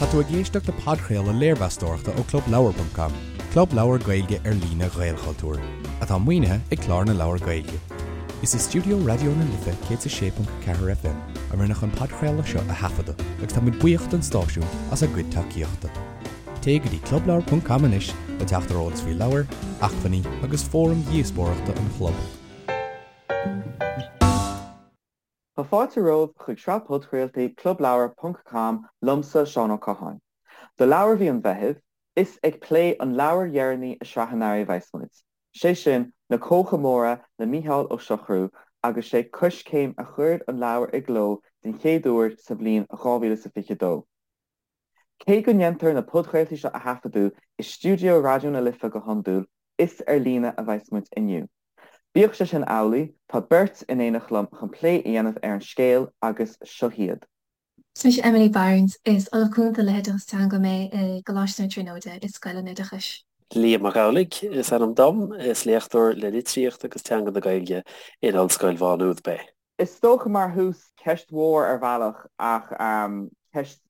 Tá tú ag éisteacht le podchraoladh léirmheastóireachta ó ClubLeabhar.com, club leabhar Gaeilge ar líne Ghaelchultúir, atá maoinithe ag Clár na Leabhar Gaeilge. Is i stiúideo Raidió na Life 106.4 FM a rinneadh an podchraoladh seo a thaifeadadh agus tá muid buíoch don stáisiún as a gcuid tacaíochta. Téigh go dtí clubleabhar.com anois le teacht ar eolas faoi leabhair, acmhainní agus fóraim dhíospóireachta an chlub. Tá fáilte romhaibh chuig sraith podchraoltaí Clubleabhar ponc com liomsa, Seán Ó Catháin. Do leabhar mhí an Mheithimh, is ag plé an leabhair dheireanaí i sraith an earraigh a bheas muid, sé sin Na Cócha Móra le Mícheál Ó Siochrú agus sé Coiscéim a chuir an leabhar i gcló den chéad uair sa bhliain 2022. Cé go ndéantar na podchraoltaí seo a thaifeadadh i stiúideo Raidió na Life go hiondúil, is ar líne a bheas muid inniu. Bíodh sé sin amhlaidh, tá beirt in éineacht liom chun plé a dhéanamh ar an scéal agus seo hiad. Is mise Emily Barnes. Is Ollamh Cúnta le hOideachas Teanga mé i gColáiste na Tríonóide i Scoil an Oideachais. Liam Mac Amhlaigh is ainm dom. Is léachtóir le Litríocht agus Teanga na Gaeilge in Ollscoil Mhá Nuad mé. Is dócha mar thús, ceist mhór ar bhealach ach ceist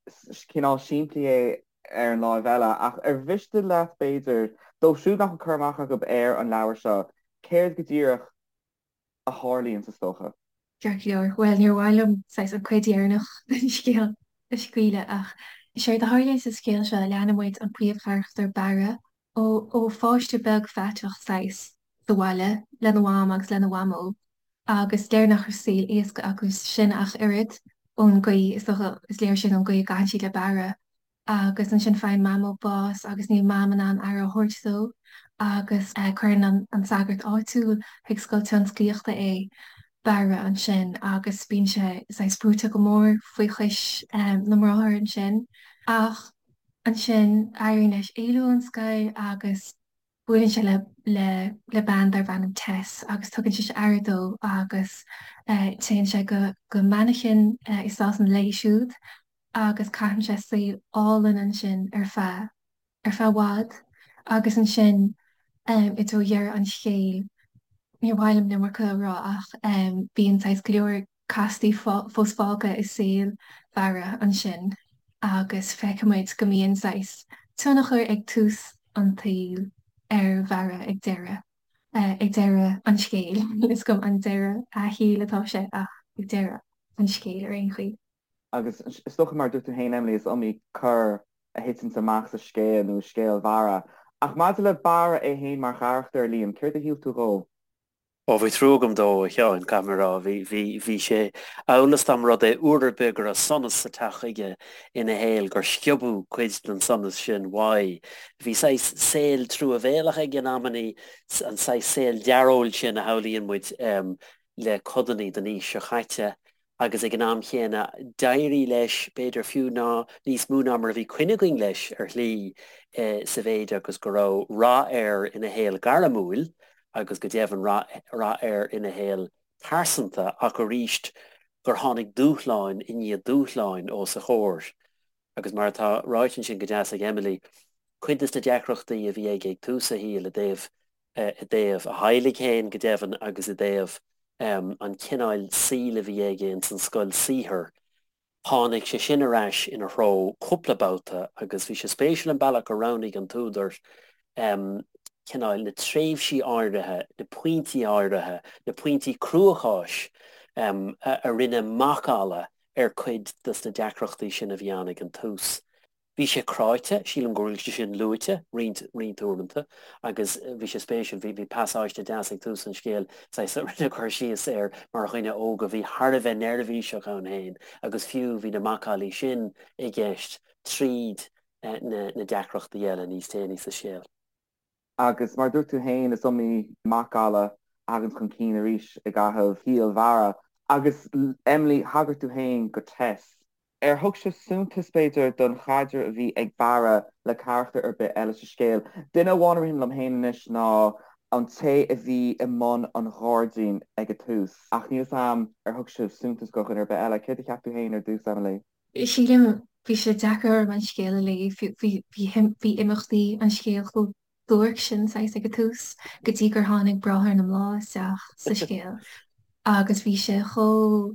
cineál simplí é ar an láimh eile, ach ar mhiste leat b'fhéidir, dóibh siúd nach bhfuil cur amach acu ar an leabhar seo, céard go díreach a tharlaíonn is dócha? Ceart go leor. Bhuel, níor mhaith liom saghas an cuid dheireanach den scéal a scaoileadh ach séard a tharlaíonn sa scéal seo, leanann muid an príomhcharachtar Barra ó pháiste beag faiteach saghas sa bhaile lena mham agus lena mhamó agus léir nach raibh saol éasca acu sin ach oiread ón gcaoi, is dócha, is léir sin ón gcaoi a gcaitheann siad le Barra agus ansin faigheann Mamó bás agus níl Mam in ann aire a thabhairt dó agus cuireann an sagart áitiúil chuig scoil tionsclaíochta é, Barra, ansin agus bíonn sé saghas brúite go mór faoi chois na mbráthar ansin ach ansin éiríonn leis éalú ón scoil agus buaileann sé le le le bean darb ainm Tess agus tugann sise aire dó agus téann sé go go Manchain i Sasana léi siúd agus caitheann sé saol álainn ansin ar feadh ar feadh i bhfad agus ansin i dtreo dheireadh an scéil níor mhaith liom an iomarca a rá ach bíonn saghas go leor castaí fós fágtha i saol Bharra ansin agus feicimid go mbíonn saghas tionchar ag tús an tsaoil ar Bharra ag deireadh, ag deireadh an scéil. Níl 'fhios agam an deireadh a shaoil atá sé ach ag deireadh an scéil ar aon chaoi. Agus is dócha mar a dúirt tú féin Emily, is iomaí cor a thiteanns amach sa scéal nó i scéal Bharra. Ach maidir le Barra é féin mar charachtar, Liam, céard a shíl tú dhó? Ó, bhí trua agam dó, a Sheáin, caithfidh mé a rá. Bhí, bhí, bhí sé amhail is dá mba rud é uair ar bith go raibh sonas sa teach aige ina shaol gur sciobadh cuid den sonas sin uaidh. Bhí saghas saol truamhéalach aige in amannaí, an saghas saol dearóil sin a shamhlaíonn muid le codannaí den aois seo chaite agus ag an am chéanna d'éirigh leis, b'fhéidir fiú ná níos mó ná mar a bhí coinne againn leis ar shlí sa mhéid agus go raibh rath air ina shaol gairmiúil agus go deimhin rath air ina shaol pearsanta ach arís gur tháinig dúshláin i ndiaidh dúshláin os a chomhair. Agus mar atá ráite ansin go deas ag Emily, cuid de na deacrachtaí a bhí aige ag tús a shaoil i dtaobh i dtaobh a theaghlaigh féin go deimhin agus i dtaobh an chineáil saoil a bhí aige ins an scoil saothair, tháinig sé sin ar ais ina threo cúpla babhta agus bhí sé spéisiúil an bealach gur roghnaigh an t-údar cineál na tréimhsí áirithe, na pointí áirithe, na pointí cruacháis a rinne macalla ar cuid des na deacrachtaí sin a bhí ann ag an tús. Bhí sé cráite, sílim go bhfuil sé sin luaite roinnt, roinnt uaireanta agus bhí sé spéisiúil, bhí, bhí pasáiste deas ag tús an scéil, saghas, a rinne cur síos air mar dhuine óg a bhí thar a bheith neirbhíseach ann féin agus fiú bhí na macallaí sin i gceist tríd na, na deacrachtaí eile níos déanaí sa scéal. Agus mar a dúirt tú féin, is iomaí macalla a thagann chun cinn arís i gcaitheamh shaol Bharra. Agus Emily, thagair tú féin go Tess. Ar thug sibh suntas, b'fhéidir, don chaidreamh a bhí ag Barra le carachtar ar bith eile sa scéal? Duine amháin a ritheann liom féin anois ná an té a bhí i mbun an ghairdín ag an tús, ach níl 'fhios a'm ar thug sibh suntas do dhuine ar bith eile. Céard a cheap tú féin ar dtús, Emily? Sílim, bhí sé deacair orm an scéal a léamh, bhí imeachtaí an scéil chomh duairc sin saghas ag an tús, go dtí gur tháinig Bráthair na mBláth isteach sa scéal agus bhí sé chomh.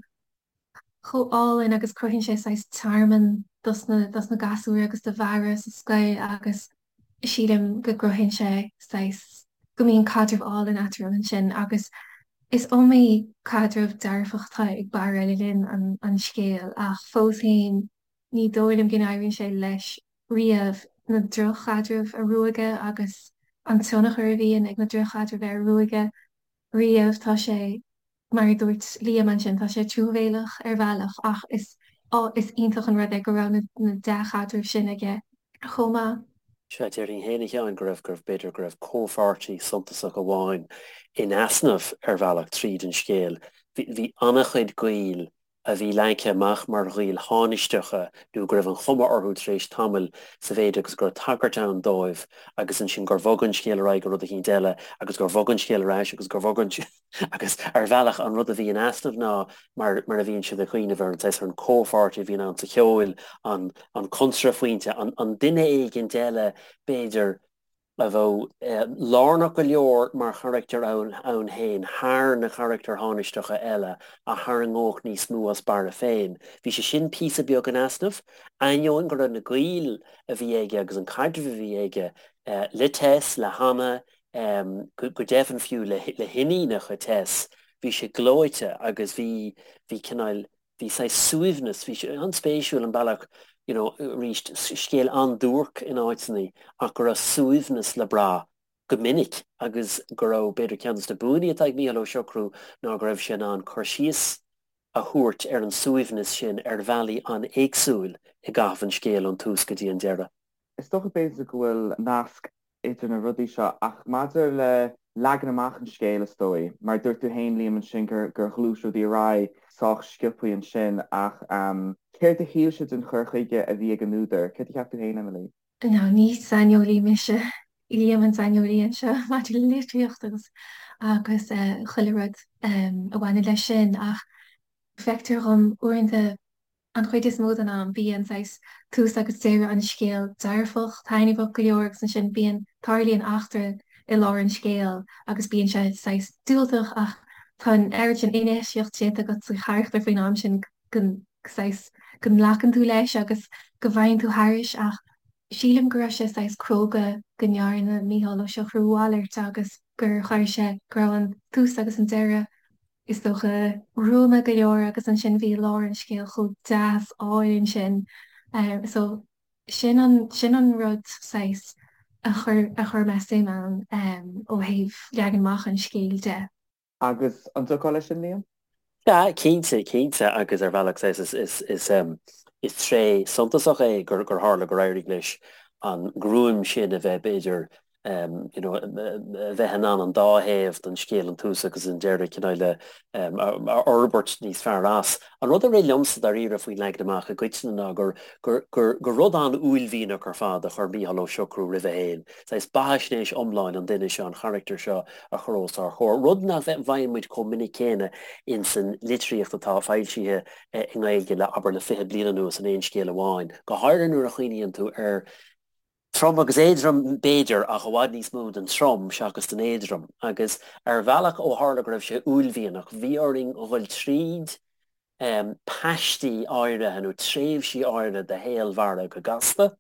chomh álainn agus cruthaíonn sé saghas tearmann. dos na dos na gasúir agus do Bharra sa scoil agus sílim go gcruthaíonn sé saghas go mbíonn caidreamh álainn eatarthu ansin agus is iomaí caidreamh dearfach atá ag Barra le linn an an scéil ach fós féin ní dóigh liom go n-éiríonn sé leis riamh na droch-chaidrimh a ruaigeadh agus an tionchar a bhíonn ag na droch-chaidrimh air a ruaigeadh riamh. Tá sé, mar a dúirt Liam ansin, tá sé truamhéalach ar bhealach ach is is iontach an rud é go raibh na dea-chaidrimh sin aige chomh maith. Sea, déarfainn féin, a Sheáin, go raibh, go raibh, b'fhéidir go raibh comhpháirtí suntasach amháin in easnamh ar bhealach tríd an scéal. Bhí, bhí an-chuid gaoil a bhí leagtha amach mar ghaoil thánaisteacha nó go raibh an chuma orthu tar éis tamaill sa mhéid agus go raibh tagairt ann dóibh agus ansin gur bhog an scéal ar aghaidh go rud eicínt eile agus gur bhog an scéal ar ais agus gur bhog an agus ar bhealach an rud a bhí in easnamh ná mar mar a bhíonn siad ag cuimhneamh ar an saghas ar an comhpháirtí a bhíonn ann sa cheol an an cuntraphointe an an duine éigint eile b'fhéidir a bheadh lárnach go leor mar charachtar ann féin thar na carachtair thánaisteacha eile a tharraingeodh níos mó as Barra féin. Bhí sé sin píosa beag in easnamh, ainneoin go raibh na gaoil a bhí aige agus an caidreamh a bhí aige le Tess, le Hannah, go deimhin fiú le hiníonacha Tess, bhí sé gleoite agus bhí, bhí cineál, bhí saghas suaimhneas, bhí sé an-spéisiúil an bealach, you know, arís, scéal an-duairc in áiteanna ach go raibh suaimhneas le brath go minic agus go raibh, b'fhéidir, ceann de na buanna atá ag Mícheál Ó Siochrú ná go raibh sé in ann cur síos a thabhairt ar an suaimhneas sin ar bhealaí an-éagsúil i gcaitheamh an scéil ón tús go dtí an deireadh. Is dócha b'fhéidir go bhfuil nasc idir na rudaí seo ach maidir le leagan amach an scéil is dóigh, mar dúirt tú féin Liam ansin gur gur ghluais rudaí ar aghaidh sách sciobthaí ansin ach céard a shíl sibh den chur chuige a bhí ag an údar? Céard a cheap tú féin Emily? Now ní saineolaí mise, Liam an saineolaí anseo maidir le litríocht agus agus chuile rud a bhaineann leis sin ach feictear dhom uaireanta An chuid is mó den am, bíonn saghas tús agus deireadh an scéil dearfach, taitneamhach go leor agus ansin bíonn, tarlaíonn eachtra i lár an scéil agus bíonn sé saghas diúltach ach tá an oiread sin infheistíocht déanta agat sa charachtar faoin am sin go saghas go nglacann tú leis agus go bhfaigheann tú thairis ach sílim go raibh sé saghas cróga go ndearna Mícheál Ó Siochrú a mhalairt agus gur chuir sé, go raibh an tús agus an deireadh is dócha, gruama go leor agus ansin bhí lár an scéil chomh deas álainn sin. So sin an, sin an rud saghas a chuir, a chuir mé suim ann ó thaobh leagan amach an scéil de. Agus an dtiocfá leis sin, Liam? Sea, cinnte, cinnte agus ar bhealach saghas is, is, is, is tréith suntasach é gur, gur tharla gur éirigh leis an ngruaim sin a bheith b'fhéidir you know, a bheith in ann an dá thaobh den scéal, an tús agus an deireadh, cineál a fhorbairt níos fearr as. An rud a rith liomsa dáiríre faoin leagan amach i gcoitinne ná gur, gur, gur, gur rud an-uaillmhianach ar fad a chuir Mícheál Ó Siochrú roimhe féin, saghas beathaisnéis iomláin an duine seo, an charachtair seo a chur os ár chomhair, rud nach bhfaigheann muid chomh minic céanna ins an litríocht atá foilsithe i nGaeilge le, abair, le 20 bliain anuas in aon scéal amháin, go háirithe nuair a chuimhníonn tú ar Trom agus éadrom, b'fhéidir, ach i bhfad níos mó den trom seachas den éadrom. Agus ar bhealach, ó tharla go raibh sé uaillmhianach, bhí orainn dhul tríd paistí áirithe nó tréimhsí áirithe de shaol Bharra go gasta,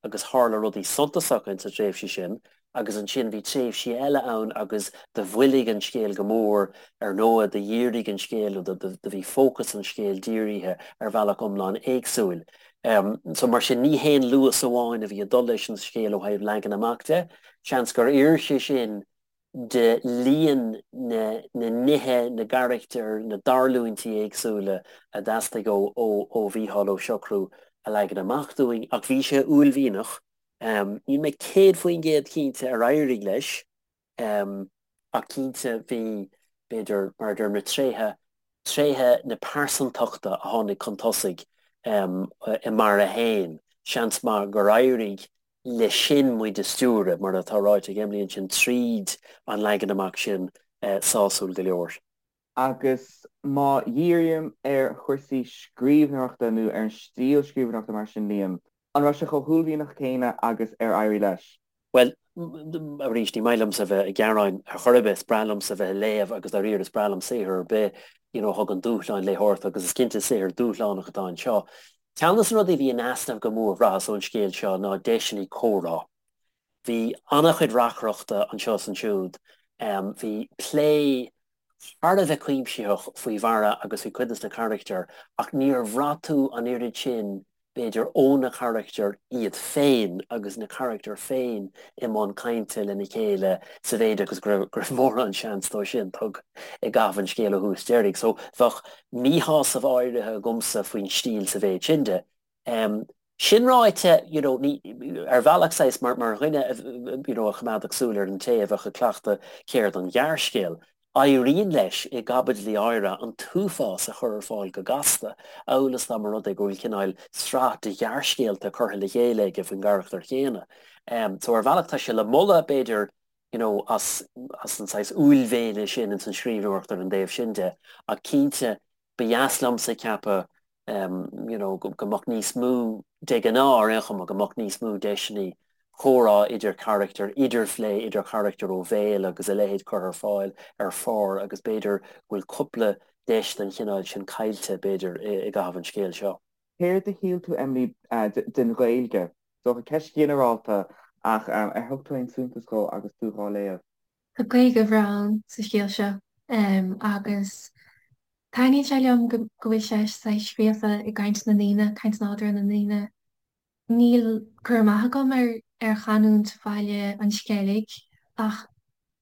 agus tharla rudaí suntasacha ins na tréimhsí sin, agus ansin bhí tréimhsí eile ann agus do mhoilligh an scéal go mór, ar ndóigh, do dhírigh an scéal nó do bhí fócas an scéil dírithe ar bhealach iomlán éagsúil. So mar sin ní haon luas amháin a bhí ag dul leis an scéal ó thaobh leagan amach de. Seans gur oir sé sin de líon na nithe, na gcarachtar, na dtarlúintí éagsúla a theastaigh ó ó Mhícheál Ó Siochrú a leagan amach dúinn ach bhí sé uaillmhianach. Níl mé 100% cinnte ar éirigh leis. Ach cinnte bhí, b'fhéidir, mar a deirim, na tréithe, tréithe na pearsantachta a tháinig chun tosaigh i mBarra féin, seans maith gur éirigh leis sin muid a stiúradh, mar atá ráite ag Emily ansin, tríd an leagan amach sin sásúil go leor. Agus má dhírím ar chúrsaí scríbhneoireachta nó ar an stíl scríbhneoireachta mar sin, Liam, an raibh sé chomh huaillmhianach céanna agus ar éirigh leis? Bhuel, arís, ní maith liomsa a bheith ag gearáin ar chor ar bith, is breá liomsa a bheith ag léamh agus dáiríre is breá liom saothar ar bith, you know, a thugann dúshlán léitheoireachta agus is cinnte saothar dúshlánach atá anseo. Ceann de na rudaí a bhí in easnamh go mór, bhraitheas, ón scéal seo ná deiseanna comhrá. Bhí an-chuid reacaireachta anseo is ansiúd. Bhí plé thar a bheith cuimsitheach faoi Bharra agus faoi chuid de na carachtair ach níor bhraith tú an oiread sin, b'fhéidir, ó na carachtair iad féin agus na carachtair féin i mbun cainte lena chéile sa mhéid agus go raibh mórán seans dó sin tugtha i gcaitheamh an scéil ó thús deiridh. So bheadh míshásamh áirithe agamsa faoin stíl sa mhéid sin de. Sin ráite, you know, ní, ar bhealach saghas, mar, mar dhuine a, you know, a choimeádfadh súil ar an té a bheadh ag cleachtadh ceird an ghearrscéil, éiríonn leis i gcaibidlí áirithe an t-uafás a chur ar fáil go gasta, amhail is dá mba rud é go bhfuil cineál sraith de ghearrscéalta curtha le chéile aige faoin gcarachtar chéanna. So ar bhealach tá sé le moladh, b'fhéidir, you know, as, as an saghas uaillmhéine sin ins an scríbhneoireacht ar an dtaobh sin de, ach cinnte Ba dheas liomsa ceapadh you know go mbeadh níos mó, de ghnáth ar aon chuma, go mbeadh níos mó deiseanna comhrá idir charachtair, idirphlé idir charachtair ó bhéal agus a leithéid curtha ar fáil ar phár agus b'fhéidir go bhfuil cúpla deis den chineál sin caillte, b'fhéidir, i gcaitheamh an scéil seo. Céard a shíl tú, Emily, den Ghaeilge? Is dócha ceist ghinearálta ach ar thug tú aon suntas dhó agus tú dhá léamh? Tá Gaeilge bhreá ann sa scéal seo agus taitníonn sé liom go bhfuil sé saghas scríofa i gcaint na ndaoine, caint nádúrtha na ndaoine. Níl cur amach agam ar ar chanúint Bhaile an Sceilg ach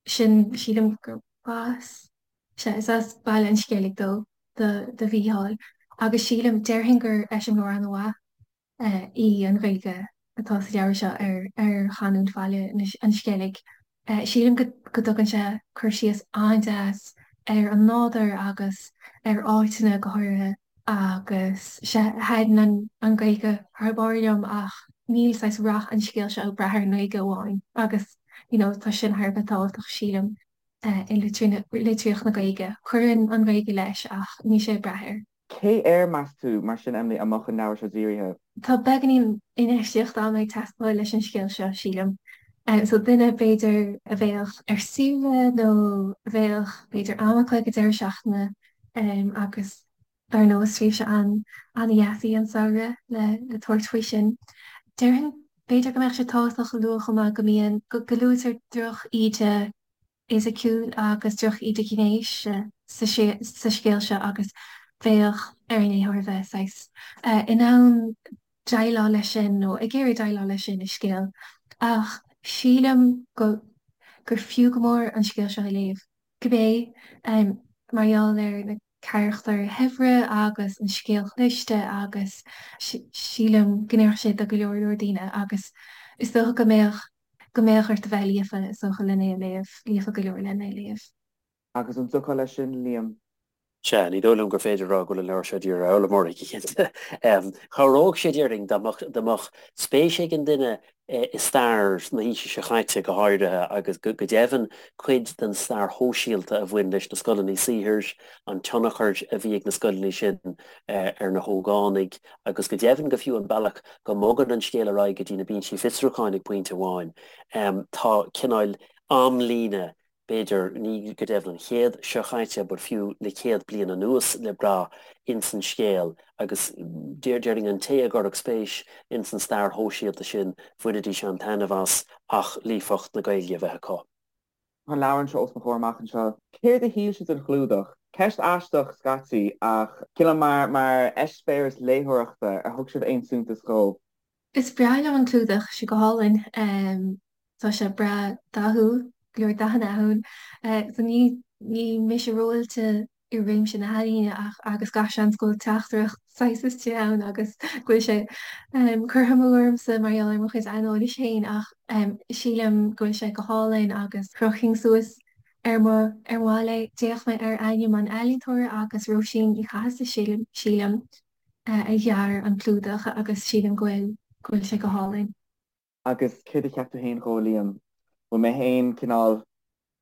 sin, sílim gur as, sea, is as Baile an Sceilg dó, do do Mhícheál agus sílim, déarfainn gur eiseamláir an-mhaith í an Ghaeilge atá sa leabhar seo ar chanúint Bhaile an Sceilg. Sílim go dtugann sé cur síos an-deas ar an nádúr agus ar áiteanna go háirithe agus sea, thaitin an Ghaeilge thar barr liom ach níl saghas rath an scéil seo ag brath ar an nGaeilge amháin agus you know tá sin thar a bheith tábhachtach sílim i litríocht na Gaeilge. Cuireann an Ghaeilge leis ach níl sé ag brath air. Cé air, meas tú, mar sin, Emily, a mbeadh an leabhar seo dírithe? Tá beagáinín infheistíocht ama ag teastáil leis an scéal seo, sílim. So duine, b'fhéidir, a bheadh ar saoire nó a bheadh, b'fhéidir, am acu ag an deireadh seachtaine agus dar ndóigh is tréimhse an-dheas í an samhradh le tabhairt faoi sin. Déarfainn, b'fhéidir go mbeadh sé tábhachtach a lua chomh maith go mbíonn, go luaitear droch-íde fhisiciúil agus droch-íde ghnéis sa scéal seo agus bheadh ar an léitheoir a bheith saghas in ann déileáil leis sin nó ag iarraidh déileáil leis sin i scéal. Ach sílim go gur fiú go mór an scéal seo a léamh, cibé mar gheall ar na carachtair shaibhre agus an scéal chliste agus sílim go n-oirfeadh sé do go leor leor daoine agus is dócha go mbeadh go mbeadh ort a bheith líofa, is dócha, len é a léamh, líofa go leor len é a léamh. Agus an dtiocfá leis sin, Liam? Sea, ní dóigh liom gur féidir a rá go bhfuil an leabhar seo dírithe ar fhoghlaimeoirí, go cinnte. Chabhródh sé, déarfainn, dá mbeadh, dá mbeadh spéis ag an duine i stair na haoise seo chaite, go háirithe, agus go deimhin cuid den stair shóisialta a bhain leis na scoileanna saothair, an tionchar a bhí ag na scoileanna sin ar na hógánaigh, agus go deimhin go fiú an bealach go mbogann an scéal ar aghaidh go dtí na binsí fiosrúcháin ag pointe amháin. Tá cineál amlíne, b'fhéidir, ní go deimhin an chéad seo chaite but fiú le céad bliain anuas le brath ins an scéal agus déarfainn an té a gcuirfeadh spéis ins an stair shóisialta sin, bhainfidís an-taitneamh as ach líofacht na Gaeilge a bheith acu. Tá an leabhar anseo os mo chomhair amach anseo. Céard a shíl sibh den chlúdach? Ceist aisteach scaití, ach cineál mar mar eispéireas léitheoireachta, ar thug sibh aon suntas dhó? Is breá liom an clúdach, sé go hálainn. Tá sé breá dathúil, go leor dathanna ann. So ní ní mise ró-oilte i réimse na healaíne ach agus gach seans go bhfuil teachtaireacht saghas istigh ann agus go bhfuil sé curtha amú ormsa mar gheall ar mo chuid aineolais féin ach sílim go bhfuil sé go hálainn agus chrochfainn suas ar mo ar mo bhalla é. D'fhéach mé ar ainm an ealaíontóra agus Róisín Ní Chathasaigh sílim a dhear an clúdach agus sílim go bhfuil go bhfuil sé go hálainn. Agus céard a cheap tú féin dhó, a Liam? Bhfuil mé féin cineál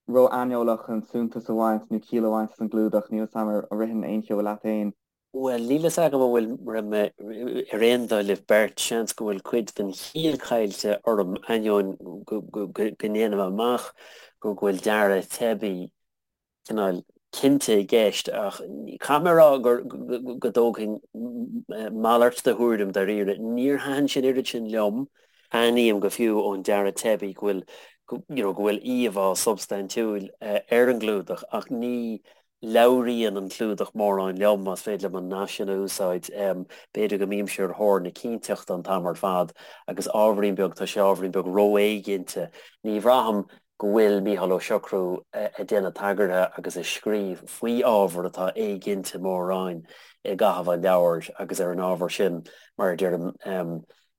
ró-aineolach chun suntas a bhaint nó ciall a bhaint as an gclúdach, níl 'fhios a'm ar ritheann aon cheo leat féin. Bhuel, níl 'fhios agam an bhfuil raibh mé ar aon dul libh beirt, seans go bhfuil cuid den chiall caillte orm, ainneoin go ndéanaim amach go bhfuil dearadh teibí cineál cinnte i gceist, ach caithfidh mé a rá gur go dtógfainn. Malairt de thuairim dáiríre. Níor thaitin sé an oiread sin liom. Aithním go fiú ón dearadh teibí go bhfuil, you know, go bhfuil íomhá substaintiúil ar an gclúdach ach ní labhraíonn an clúdach mórán liom, más féidir liom an nath sin a úsáid. B'fhéidir go mbímse ar thóir na cinnteachta an t-am ar fad agus ábhairín beag, tá sé ábhairín beag ró-éiginnte. Ní bhraithim go bhfuil Mícheál Ó Siochrú ag déanamh tagartha agus ag scríobh faoi ábhar atá éiginnte mórán i gcaitheamh an leabhair agus ar an ábhar sin, mar a deirim,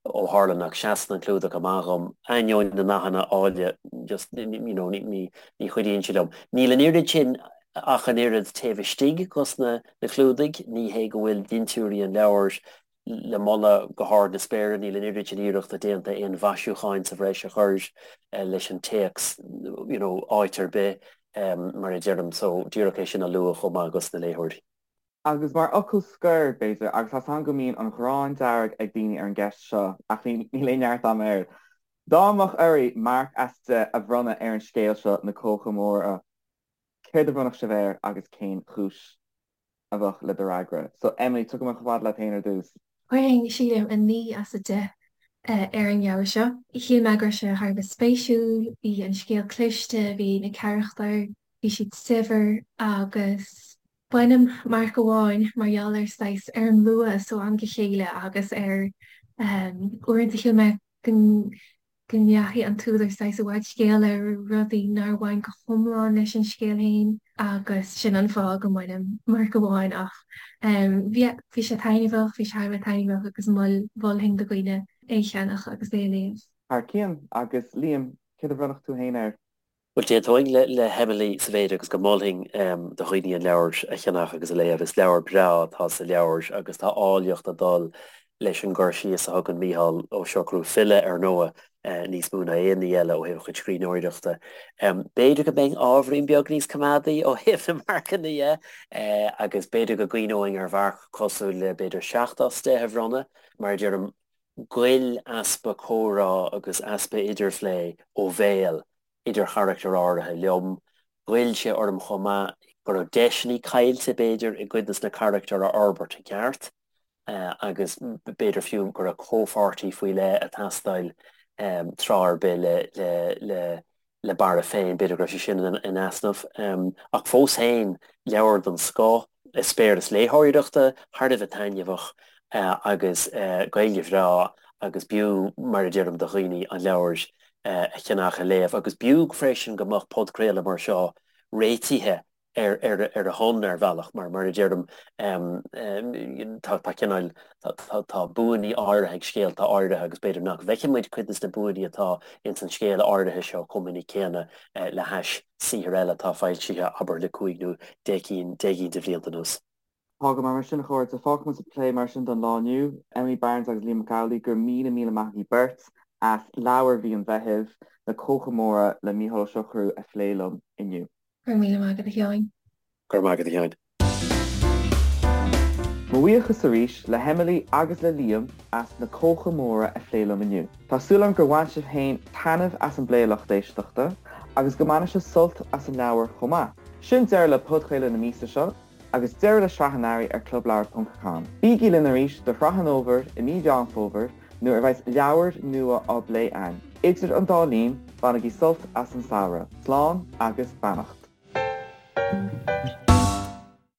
ó tharla nach seasann an clúdach amach dhom, ainneoin na ndathanna áille, just, you know, ní chuidíonn sé liom. Níl an oiread sin ach an oiread taobh istigh dos na clúdaigh, ní hé go bhfuil dintiúirí an leabhair le moladh go hard na spéire, níl an oiread sin iarrachta déanta aon mhaisiúcháin sa bhreis a chur leis an téacs, you know, áit ar bith, mar a deirim, so díreach é sin a lua chomh maith dos na léitheoirí. Agus mar fhocal scoir, b'fhéidir, agus tá 's agam go mbíonn an ghráin dearg ag daoine ar an gceist seo, ach níl aon neart agam air, dá mbeadh oraibh marc as 10 a bhronnadh ar an scéal seo, Na Cócha Móra, céard a bhronnfadh sibh air agus cén chúis a bheadh le do fhreagra? So, Emily, tiocfaidh mé chomh fada leat féin ar dtús. Chuirfinn, sílim, 9 as 10 ar an leabhar seo. Shíl mé go raibh sé thar a bheith spéisiúil, bhí an scéal cliste, bhí na carachtair, bhí siad saibhir agus Bainim marc amháin mar gheall ar saghas ar an luas ó am go chéile agus ar uaireanta shíl mé go go ndeachaigh an t-údar saghas i bhfad scéil ar rudaí nár bhain go hiomlán leis an scéal féin agus sin an fáth go mbainim marc amháin ach bhí bhí sé taitneamhach, bhí sé thar a bheith taitneamhach agus mhol mholfainn do dhaoine é a cheannach agus é a léamh. Thar cionn, agus Liam, céard a bhronnfadh tú féin air? Bhuel, d'aontóinn le hEmily sa mhéid agus go molfainn do dhaoine an leabhar a cheannach agus a léamh. Is leabhar breá atá sa leabhar agus tá áilleacht ag dul leis an gcur síos a thugann Mícheál Ó Siochrú, file ar ndóigh, níos mó ná aon ní eile ó thaobh a chuid scríbhneoireachta. B'fhéidir go mbeinn ábhairín beag níos coimeádaí ó thaobh na marcanna dhe agus b'fhéidir go gcuimhneoinn ar mharc cosúil le b'fhéidir 7 as 10 a bhronnadh. Mar a deirim, ghoill easpa comhrá agus easpa idirphlé ó bhéal idir charachtair áirithe liom. Ghoill sé orm chomh maith go raibh deiseanna caillte, b'fhéidir, i gcuid de na carachtair a fhorbairt i gceart agus b'fhéidir fiú go raibh comhpháirtí faoi leith ag teastáil tráth ar bith le le le Barra féin, b'fhéidir go raibh sé sin in easnamh. Ach fós féin, leabhar den scoth, eispéireas léitheoireachta thar a bheith taitneamhach agus Gaeilge bhreá agus b'fhiú, mar a deirim, do dhaoine an leabhar a cheannach, a léamh. Agus b'fhiú freisin go mbeadh podchraoladh mar seo réitithe ar a shon ar bhealach mar, mar a deirim, tá tá cineál, tá buanna áirithe ag scéalta áirithe agus b'fhéidir nach bhfeiceann muid cuid de na buanna atá ins an scéal áirithe seo chomh minic céanna le hais saothair eile atá foilsithe, abair, le cúig nó deich gcinn de bhlianta anuas. Tá go maith mar sin, a chairde. Fágfaidh muid an plé mar sin don lá inniu. Emily Barnes agus Liam Mac Amhlaigh, go raibh míle míle maith agaibh beirt as leabhar mhí an Mheithimh, Na Cócha Móra le Mícheál Ó Siochrú a phlé liom inniu. Go raibh míle maith agat a Sheáin. Go raibh maith agat a Sheáin. Mo bhuíochas arís le hEmily agus le Liam as Na Cócha Móra a phlé liom inniu. Tá súil agam gur bhain sibh féin taitneamh as an bplé a lucht éisteachta agus go mbainfidh sibh sult as an leabhar chomh maith. Sin deireadh le podchraoladh na míosa seo agus deireadh le sraith an earraigh ar clubleabhar.com. Bígí linn arís do shraith an fhómhair i mí Mheán Fómhair nuair a bheas leabhair nua á bplé againn. Idir an dá linn, bainigí sult as an samhradh. Slán agus beannacht.